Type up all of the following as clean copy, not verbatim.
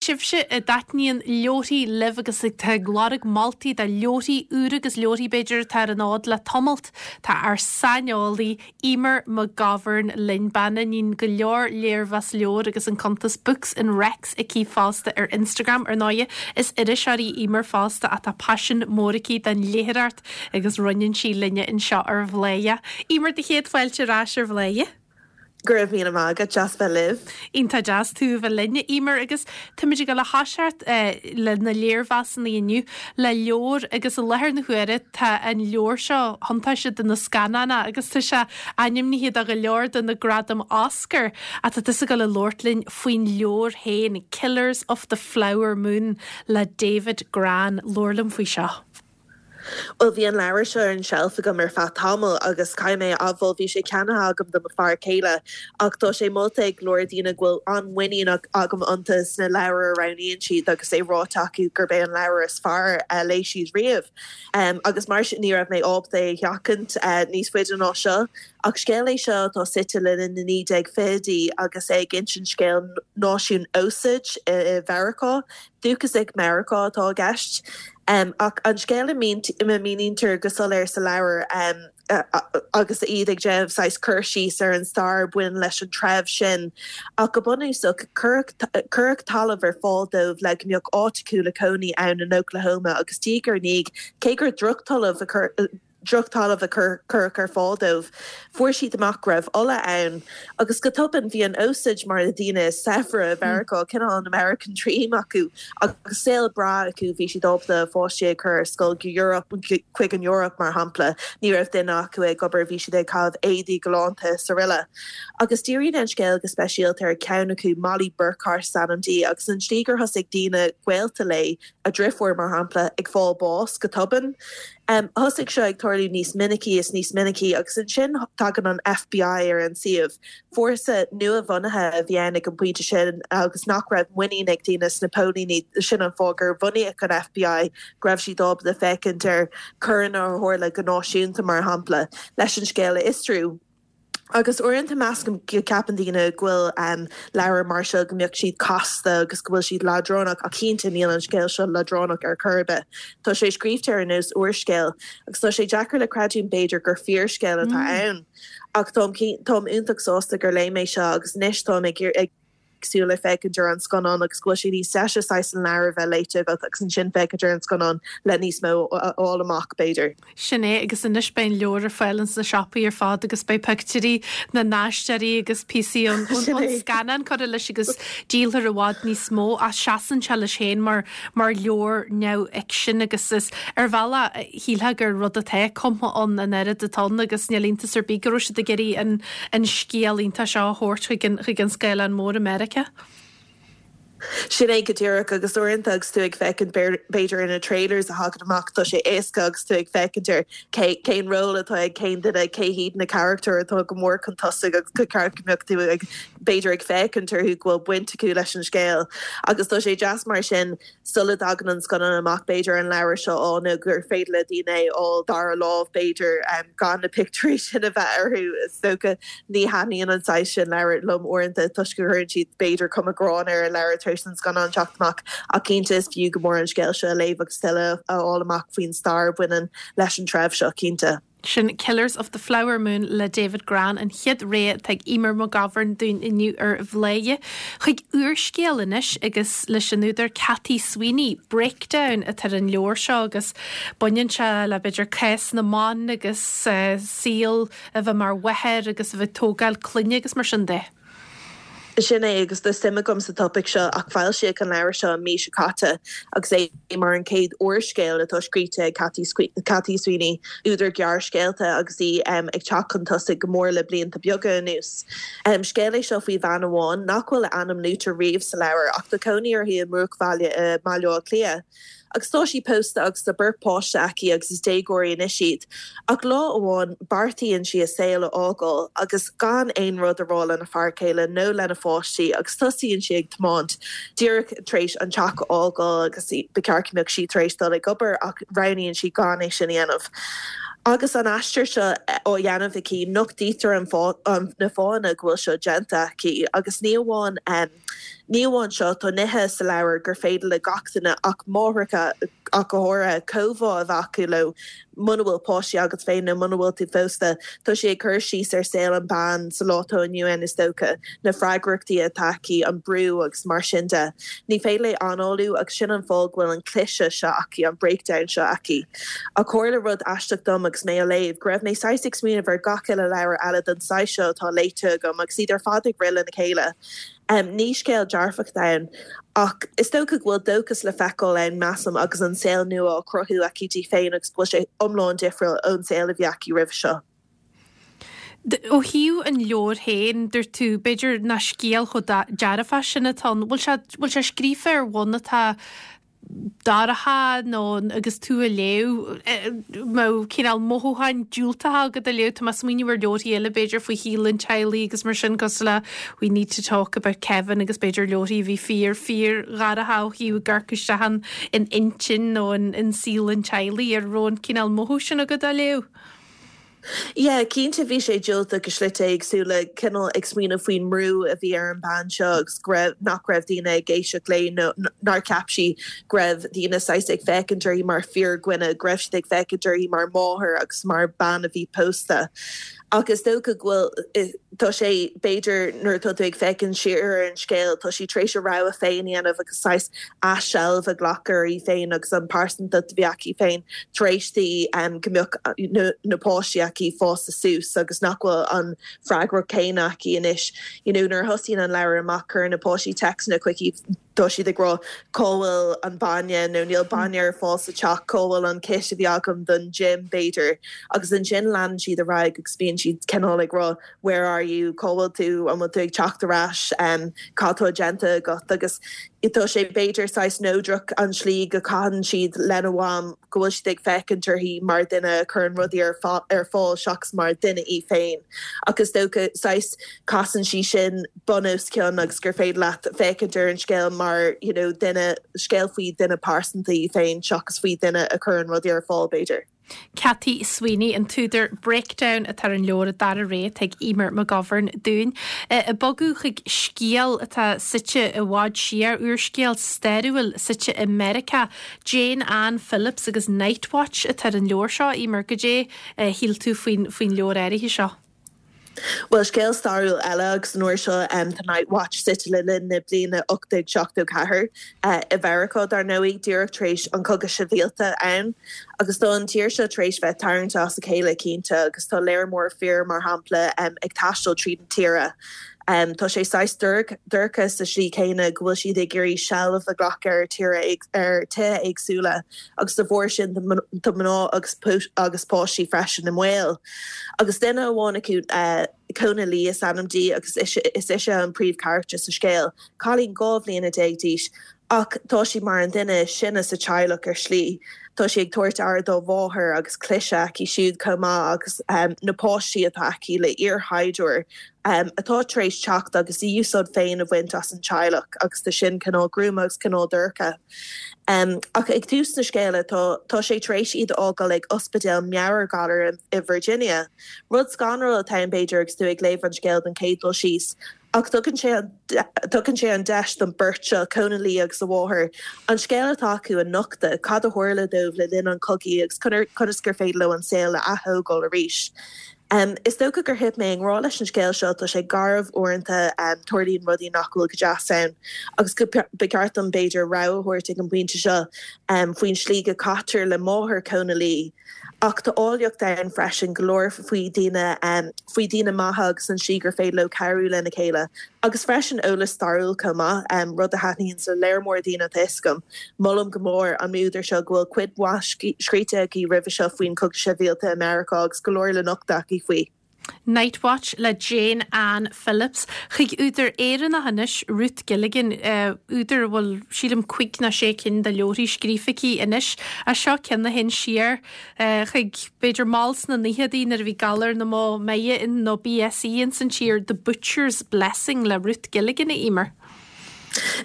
Sibhse a dtaitníonn leabharthaí libh agus atá ag lorg moltaí do leabharthaí úra agus leabharthaí b'fhéidir atá ar an fhód le tamalt, tá ár saineolaí Eimear McGovern linn, bean a níonn go leor léirmheas leabhar agus an cuntas Books and Recs aici fosta ar Instagram. Ar ndóighe, is iriseoir í Eimear fosta ach tá paisean mór aici don léitheoireacht agus roinneann sí linne anseo ar Bhladhaire. Eimear, do chéad fáilte ar ais ar Bhladhaire. Go raibh míle maith agat, deas bheith libh. Iontach deas tú a bheith linn, a Eimear, agus táimid ag dul a thoiseacht le na léirmheasanna inniu le leabhar agus i láthair na huaire tá an leabhar seo chun tosaigh do na scannáin agus tá sé ainmnithe do go leor de na gradaim Oscar ach tá tusa ag dul a labhairt linn faoin leabhar féin, Killers of the Flower Moon le David Grann. Labhair liom faoi seo. Bhuel, bhí an leabhar seo ar an tseilf agam ar feadh tamaill agus caithfidh mé a admháil, bhí sé ceannaithe agam do mo fear céile ach tá sé molta ag go leor daoine go bhfuil an-mhuinín agam iontu sna leabhair a roghnaíonn siad agus é ráite acu gurb é an leabhar is fearr a léigh siad riamh. Agus mar sin ní raibh mé ábalta é a sheachaint níos faide ná seo. Ach scéal é seo atá suite le linn na 1920idí agus é ag insint scéal náisiún Osage i Mheiriceá. Dúchasaigh Mheiriceá atá i gceist. Ach an scéal a mhíníntear go soiléir sa leabhar agus iad ag déanamh saghas cur síos ar an stair a bhaineann leis an treibh sin. Ach go bunúsach, cuireadh talamh ar fáil dóibh le go mbeadh áit acu le cónaí ann in Oklahoma agus diaidh ar ndiaidh, cé gur drochtalamh a drochtalamh a cuireadh ar fáil dóibh. Fuair siad amach go raibh ola ann, agus go tobann bhí an Osage mar na daoine is saibhre i Mheiriceá, cineál an American Dream acu, agus saol breá acu, bhí siad ábalta a pháistí a chur ar scoil go Europe, chuig an Eoraip mar shampla, ní raibh duine acu ag obair, bhí siad ag caitheamh éadaí galánta is araile. Agus díríonn an scéal go speisialta ar cheann acu, Mollie Burkhart is ainm di, agus an tslí gur thosaigh daoine gaolta léi, a driofúr mar shampla, ag fáil bás go tobann. Thosaigh seo ag tarlú níos minicí is níos minicí agus ansin tagann an FBI ar an suíomh. Fórsa nua-bhunaithe a bhí ann ag an bpointe sin agus nach raibh muinín ag daoine sna póilíní, sin an fáth gur bunaíodh an FBI, go raibh siad ábalta féachaint ar choireanna a tharla go náisiúnta mar shampla, leis an scéal a fhiosrú. Agus uaireanta measaim go gceapann daoine go bhfuil leabhair mar seo, go mbeadh siad casta agus go bhfuil siad leadránach ach cinnte níl an scéal seo leadránach ar chor ar bith. Tá sé scríobhte ar nós úrscéil agus tá sé deacair le creidiúint b'fhéidir gur fíorscéal atá ann. Ach táim táim iontach sásta gur léigh mé seo agus anois táim ag ag súil le féachaint ar an scannán agus go bhfuil sé níos deise saghas an leabhar a bheith léite agat agus ansin féachaint ar an scannán le níos mó a fháil amach, b'fhéidir. Sin é, agus anois beidh an leabhar ar fáil ins na siopaí ar fad agus beidh pictiúirí na n-aisteoirí agus píosaí ón scannán curtha leis agus díolfar i bhfad níos mó ach seasann sé leis féin mar mar leabhar neamhfhicsin agus is ar bhealach shílfeá gur rud atá cumtha ann an oiread atá ann agus níl iontas ar bith go raibh siad ag iarraidh an an scéal iontach seo a thabhairt chuig an chuig an scáileán mór i Meiriceá. Sin é go díreach agus uaireanta agus tú ag féachaint b'fhéidir ar na trailers a thagann amach tá sé éasca agus tú ag féachaint ar cé cén ról atá ag cén duine, cé hiad na carachtair atá go mór chun tosaigh agus go ceart go mbeadh tú ag b'fhéidir ag féachaint orthu go bhfuil baint acu leis an scéal agus tá sé deas mar sin sula dtagann an scannán amach b'fhéidir an leabhar seo a fháil nó gur féidir le daoine é a fháil dara lámh b'fhéidir gan na pictiúirí sin a bheith orthu. Is dócha ní thaitníonn an saghas sin leabhar liom uaireanta toisc go gcuireann siad b'fhéidir cuma gránna ar an leabhar tar éis don scannán teacht amach ach cinnte is fiú go mór an scéal seo a léamh agus tuilleadh a fháil amach faoin stair a bhaineann leis an treibh seo cinnte. Sin Killers of the Flower Moon le David Grann, an chéad rogha atá ag Eimear McGovern dúinn inniu ar Bhladhaire. Chuig úrscéal anois agus leis an údar Cathy Sweeney, Breakdown atá ar an leabhar seo agus baineann sé le b'fhéidir cás na mban agus saol a bheith mar mháthair agus a bheith ag tógáil clainne agus mar sin de. Sin é, agus tá suim agam sa topaic seo, ach foilsíodh an leabhar seo an mhí seo caite agus é mar an chéad úrscéal atá scríte ag Cathy Sweeney, údar gearrscéalta agus í ag teacht chun tosaigh go mór le blianta beaga anuas. Scéal é seo faoi bhean amháin nach bhfuil a ainm luaite riamh sa leabhar ach tá cónaí uirthi i mbruachbhaile i mBaile Átha Cliath. Agus tá sí pósta agus tá beirt páiste aici agus is déagóirí anois iad. Ach lá amháin beartaíonn sí a saol a fhágáil agus gan aon rud a rá lena fear céile nó lena pháistí agus tosaíonn sí ag tiomáint díreach tar éis an teach a fhágáil agus ba cheart go mbeadh sí tar éis dul ag obair ach roghnaíonn sí gan é sin a dhéanamh. Agus an aistear seo á dhéanamh aici nochtaítear an na fáthanna go bhfuil seo déanta aici agus ní amháin. Ní amháin seo, tá nithe sa leabhar gur féidir le gach duine, ach máithreacha ach go háirithe, comhbhá a bheith acu leo. Muna bhfuil páistí agat féin nó muna bhfuil tú pósta, tá sí ag cur síos ar saol an bean sa lá atá inniu ann is dócha, na freagrachtaí atá aici, an brú agus mar sin de. Ní féidir léi análú agus sin an fáth go bhfuil an cliseadh seo aici, an breakdown seo aici. Ach tharla rud aisteach dom agus mé á léamh, go raibh mé saghas ag smaoineamh ar gach uile leabhar eile den saghas seo atá léite agam agus iad ar fad ag rith lena chéile. Ní scéal dearfach atá ann, ach is dócha go bhfuil dóchas le feiceáil ann, measaim, agus an saol nua á chruthú aici di féin agus go bhfuil sé iomlán difriúil ón saol a bhí aici roimhe seo. Ó thaobh an leabhair féin, dúirt tú, b'fhéidir nach scéal chomh dearfach sin atá ann. Bhfuil sé, bhfuil sé scríofa ar bhonn atá dorcha nó agus tú á léamh, mbeadh cineál mothúcháin diúltacha agat á léamh, tá mé ag smaoineamh ar leabharthaí eile b'fhéidir faoi shaol an teaghlaigh agus mar sin cosúil le We Need to Talk About Kevin agus b'fhéidir leabharthaí a bhí fíor, fíor dhorcha ó thaobh ag amharc isteach in in intinn nó in in saol an teaghlaigh, an raibh an cineál mothú sin agat á léamh? Yeah, cinnte bhí sé diúltach i slite éagsúla, cineál ag smaoineamh faoin mbrú a bhí ar an bean seo agus go raibh, nach raibh daoine ag éisteacht léi nó nár cheap sí go raibh daoine saghas ag féachaint uirthi mar fíordhuine, go raibh siad ag féachaint uirthi mar mháthair agus mar bean a bhí pósta. Ach is dócha go bhfuil, tá sé, b'fhéidir nuair atá tú ag féachaint siar ar an scéal, tá sí tar éis a rogha féin a dhéanamh agus saghas athsheilbh a ghlacadh uirthi féin agus an pearsantacht a bhí aici féin tar éis di go mbeadh na páistí aici fásta suas agus nach bhfuil an freagracht céanna aici anois. You know nuair a thosaíonn an leabhar amach cuireann na páistí téacsanna chuici, tá siad ag rá cá bhfuil an bainne nó níl bainne ar fáil sa teach, cá bhfuil an kit a bhí agam don gym b'fhéidir agus ansin leanann siad ar aghaidh agus bíonn siad cineál ag rá where are you, cá bhfuil tú, an bhfuil tú ag teacht ar ais, cad tá déanta agat agus tá sé b'fhéidir saghas neodrach an tslí go caitheann siad lena mham, go bhfuil siad ag féachaint uirthi mar duine a chuireann rudaí ar ar fáil seachas mar duine í féin. Ach is dócha saghas casann sí sin bun os cionn agus gur féidir leat féachaint ar an scéal mar you know duine, scéal faoi duine pearsanta í féin seachas faoi duine a chuireann rudaí ar fáil b'fhéidir. Cathy Sweeney, an t-údar Breakdown atá ar an leabhar, an dara rogha atá ag Eimear McGovern dúinn. Ag bogadh chuig scéal atá suite i bhfad siar, úrscéal stairiúil suite i Meiriceá, Jane Anne Phillips agus Night Watch atá ar an leabhar seo, Eimear. Goidé a shíl tú faoin leabhar áirithe seo? Bhuel, scéal stairiúil eile agus an uair seo tá Night Watch suite le linn na bliana 1874 i Mheiriceá, dar ndóigh, díreach tar éis an Cogadh Sibhialta ann. Agus tá an tír seo tar éis bheith tarraingte as a chéile, cinnte, agus tá léar mór fir, mar shampla, ag taisteal tríd an tíre. Tá sé saghas dorcha sa slí céanna go bhfuil siad ag iarraidh seilbh a ghlacadh ar tíre ar tithe éagsúla agus de bharr sin tá mná agus agus páistí freisin i mbaol. Agus duine amháin acu, Kona Lee is ainm di agus is ise an príomhcharachtar sa scéal, cailín 12 bhliana d'aois Ach tá sí mar an duine is sine sa teaghlach ar shlí. Tá sí ag tabhairt aire dá mháthair agus cliseadh aici siúd chomh maith agus na páistí atá aici le iarshaighdiúir atá tar éis teacht agus a úsáid féin a bhaint as an teaghlach agus tá sin cineál gruama agus cineál dorcha. Ach ag tús na scéala tá tá sé tar éis iad a fhágáil ag ospidéal meabhairghalair i Virginia. Rud scanrúil atá ann b'fhéidir agus tú ag léamh an scéil don chéad dul síos. Ach tugann sé tugann sé an deis don beirt seo, Kona Lee agus a mháthair, an scéal atá acu a nochtadh, cad a tharla dóibh le linn an chogaidh agus conas gur féidir leo an saol a ath-thógáil arís. Is dócha gur thit mé i ngrá leis an scéal seo, tá sé garbh uaireanta, tarlaíonn rudaí nach bhfuil go deas ann agus go ba cheart dom b'fhéidir rabhadh a thabhairt ag an bpointe seo faoin slí go caitear le máthair Kona Lee. Ach tá áilleacht ann freisin, go leor faoi daoine, faoi daoine maithe agus an slí gur féidir leo cabhrú lena chéile. Agus freisin eolas stairiúil chomh maith, rud a thaitníonns le léar mór daoine tá 'fhios agam. Molaim go mór an údar seo go bhfuil cuid mhaith scríte aici roimhe seo faoin Chogadh Sibhialta i Meiriceá agus go leor le nochtadh aici faoi. Night Watch le Jane Anne Phillips. Chuig údar Éireannach anois, Ruth Gilligan, údar a bhfuil, sílim, cuig nó sé cinn de leabharthaí scríofa aici anois. Ach seo ceann a théann siar chuig, b'fhéidir, mall sna naochadaí nuair a bhí galar na mbó meidhe nó BSE ins an tír, The Butcher's Blessing le Ruth Gilligan, a Eimear.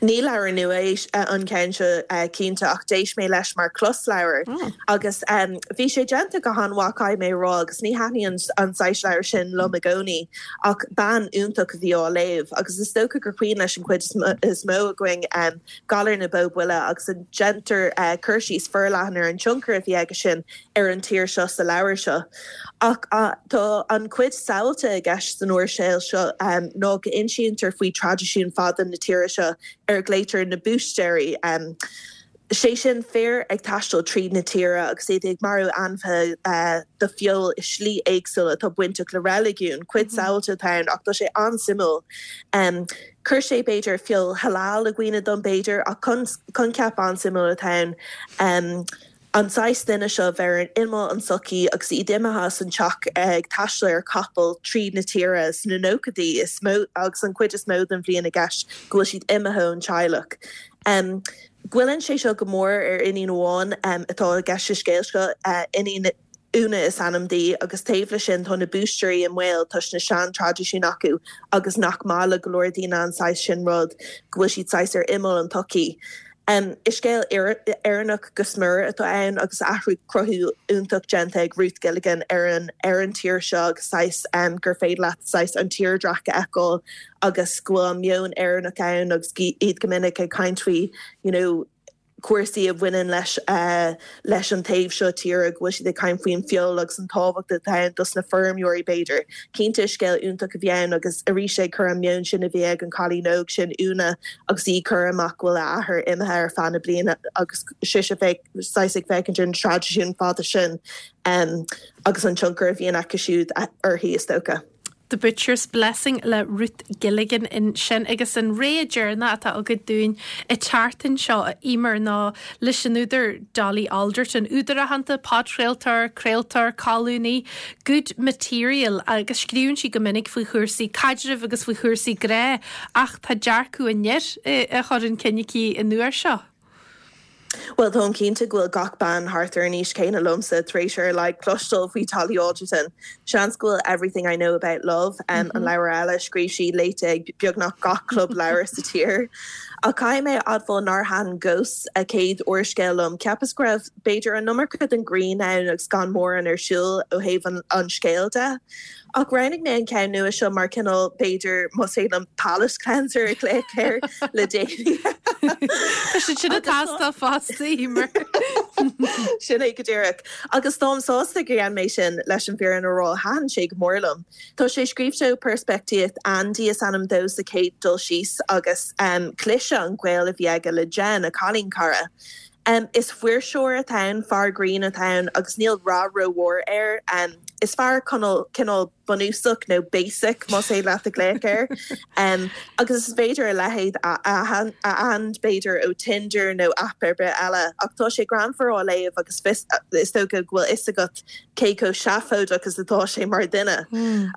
Ní leabhar nua é an ceann seo cinnte ach d'éist mé leis mar closleabhar agus bhí sé déanta go han-mhaith caithfidh mé a rá agus ní thaitníonn an saghas leabhar sin liom i gcónaí ach bean iontach a bhí á léamh agus is dócha gur cuimhin leis an chuid is mó againn Galar na Bó Buile agus déantar cur síos forleathan ar an tionchar a bhí aige sin ar an tír seo sa leabhar seo. Ach tá an chuid samhalta i gceist san úrscéal seo ná go n-insítear faoi traidisiún fada na tíre seo ar a ghlaoitear na búistéirí, sé sin fir ag taisteal tríd na tíre agus iad ag marú ainmhithe do feoil i slí éagsúil atá bainteach le reiligiún. Cuid samhalta atá ann ach tá sé an-suimiúil. Chuir sé b'fhéidir feoil halal i gcuimhne dom b'fhéidir ach coincheap an-suimiúil atá ann. An saghas duine seo a bheith ar imeall an tsochaí agus iad imithe as an teach ag taisteal ar chapall tríd na tíre sna nóchaidí is mó agus an chuid is mó den bhliain i gceist go bhfuil siad imithe ón teaghlach. Goilleann sé seo go mór ar iníon amháin atá i gceist sa scéal seo, iníon Úna is ainm di agus taobh leis sin tá na búistéirí i mbaol toisc na sean-traidisiúin acu agus nach maith le go leor daoine an saghas sin rud, go bhfuil siad saghas ar imeall an tsochaí. Is scéal Éireannach go smior atá ann agus athrú cruthú iontach déanta ag Ruth Gilligan ar an ar an tír seo agus saghas gur féidir leat saghas an tírdhreach a fheiceáil agus go bhfuil an meon Éireannach ann agus iad go minic ag caint faoi you know cúrsaí a bhaineann leis leis an taobh seo tíre, go bhfuil siad ag caint faoin feoil agus an tábhacht atá ann dos na feirmeoirí b'fhéidir. Cinnte is scéal iontach a bhí ann agus arís ag cur an meon sin a bhí ag an cailín óg sin, Úna, agus í ag cur amach go bhfuil a athair imithe ar feadh na bliana agus sise saghas ag féachaint ar na traidisiúin fada sin agus an tionchar a bhíonn acu siúd uirthi is dócha. The Butcher's Blessing le Ruth Gilligan ansin agus an rogha deireanach atá agat dúinn an tseachtain seo, a Emer, ná leis an údar Dolly Alderton, údar aitheanta, podchraoltóir, craoltóir, colúnaí, Good Material agus scríobhann sí go minic faoi chúrsaí caidrimh agus faoi chúrsaí grá ach tá dearcadh an fhir á chur chun cinn aici an uair seo. Bhuel, táim cinnte go bhfuil gach bean thart ar an aois céanna liomsa tar éis ar a laghad cloisteáil faoi Dolly Alderton. Seans go bhfuil Everything I Know About Love, an leabhar eile a scríobh sí, léite ag beagnach gach club leabhar sa tír. Ach caithfidh mé a admháil nár thaitin Ghosts, a céad úrscéal liom. Cheapas go raibh, b'fhéidir, an iomarca den ghrian ann agus gan mórán ar siúl ó thaobh an scéil de. Ach roghnaigh mé an ceann nua seo mar cineál, b'fhéidir, más féidir liom palate cleanser a ghlaoch air le déanaí. Tá siad sin ag teastáil fosta, Emer. Sin é go díreach. Agus táim sásta gur dhein mé sin, leis an bhfírinne a rá, thaitin sé go mór liom. Tá sé scríobhte ó peirspictíocht Andy is ainm dó sa chéad dul síos agus cliseadh an gaol a bhí aige le Jen, a cailín cara. Is fuirseoir atá ann, fear grinn atá ann agus níl rath rómhór air. Is fear cineál bunúsach nó basic más féidir leat a ghlaoch air. Agus is féidir a leithéid a aithint b'fhéidir ó Tinder nó aip ar bith eile. Ach tá sé greannmhar á léamh agus is dócha go bhfuil fhios agat cé chomh seafóideach is atá sé mar dhuine.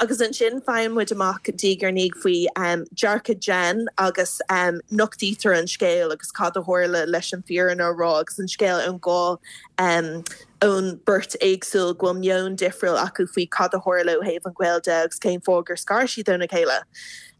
Agus ansin faigheann muid amach diaidh ar ndiaidh faoi dearcadh Jen agus nochtaítear an scéal agus cad a tharla leis an bhfírinne a rá agus an scéal ón dhá ón beirt éagsúil go bhfuil meon difriúil acu faoi cad a tharla ó thaobh an ghaoil de agus cén fáth gur scar siad óna chéile.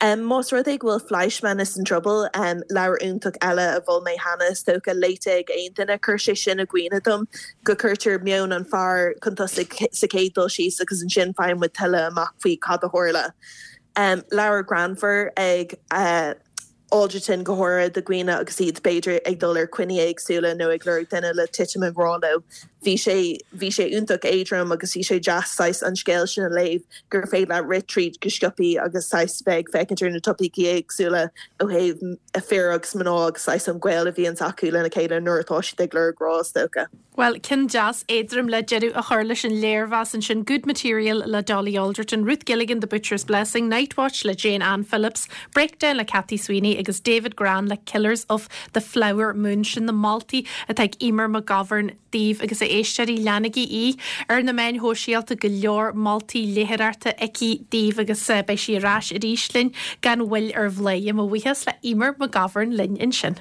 Más rud é go bhfuil Fleishman is in Trouble, leabhar iontach eile a mhol mé cheana, is dócha, léite ag aon duine, chuir sé sin i gcuimhne dom go cuirtear meon an fear chun tosaigh sa chéad dul síos agus ansin faigheann muid tuilleadh amach faoi cad a tharla. Leabhar greannmhar ag Alderton go háirithe do dhaoine agus iad b'fhéidir ag dul ar coinní éagsúla nó ag lorg duine le titim i ngrá leo. Bhí sé, bhí sé iontach éadrom agus bhí sé deas saghas an scéal sin a léamh gur féidir leat rith tríd go sciobthaí agus saghas bheith ag féachaint ar na topaicí éagsúla ó thaobh fir agus mná agus saghas an gaol a bhíonns acu lena chéile nuair atá siad ag lorg grá is dócha. Bhuel, ceann deas éadrom le deireadh a chur leis an léirmheas ansin, Good Material le Dolly Alderton, Ruth Gilligan, The Butcher's Blessing, Night Watch le Jane Anne Phillips, Breakdown le Cathy Sweeney agus David Grann le Killers of the Flower Moon. Sin na moltaí atá ag Emer McGovern daoibh agus a éisteoirí, leanaigí í ar na meáin shóisialta, go leor moltaí léitheoireachta aici daoibh agus beidh sí ar ais arís linn gan mhoill ar Bhladhaire. Mo bhuíochas le Emer McGovern linn ansin.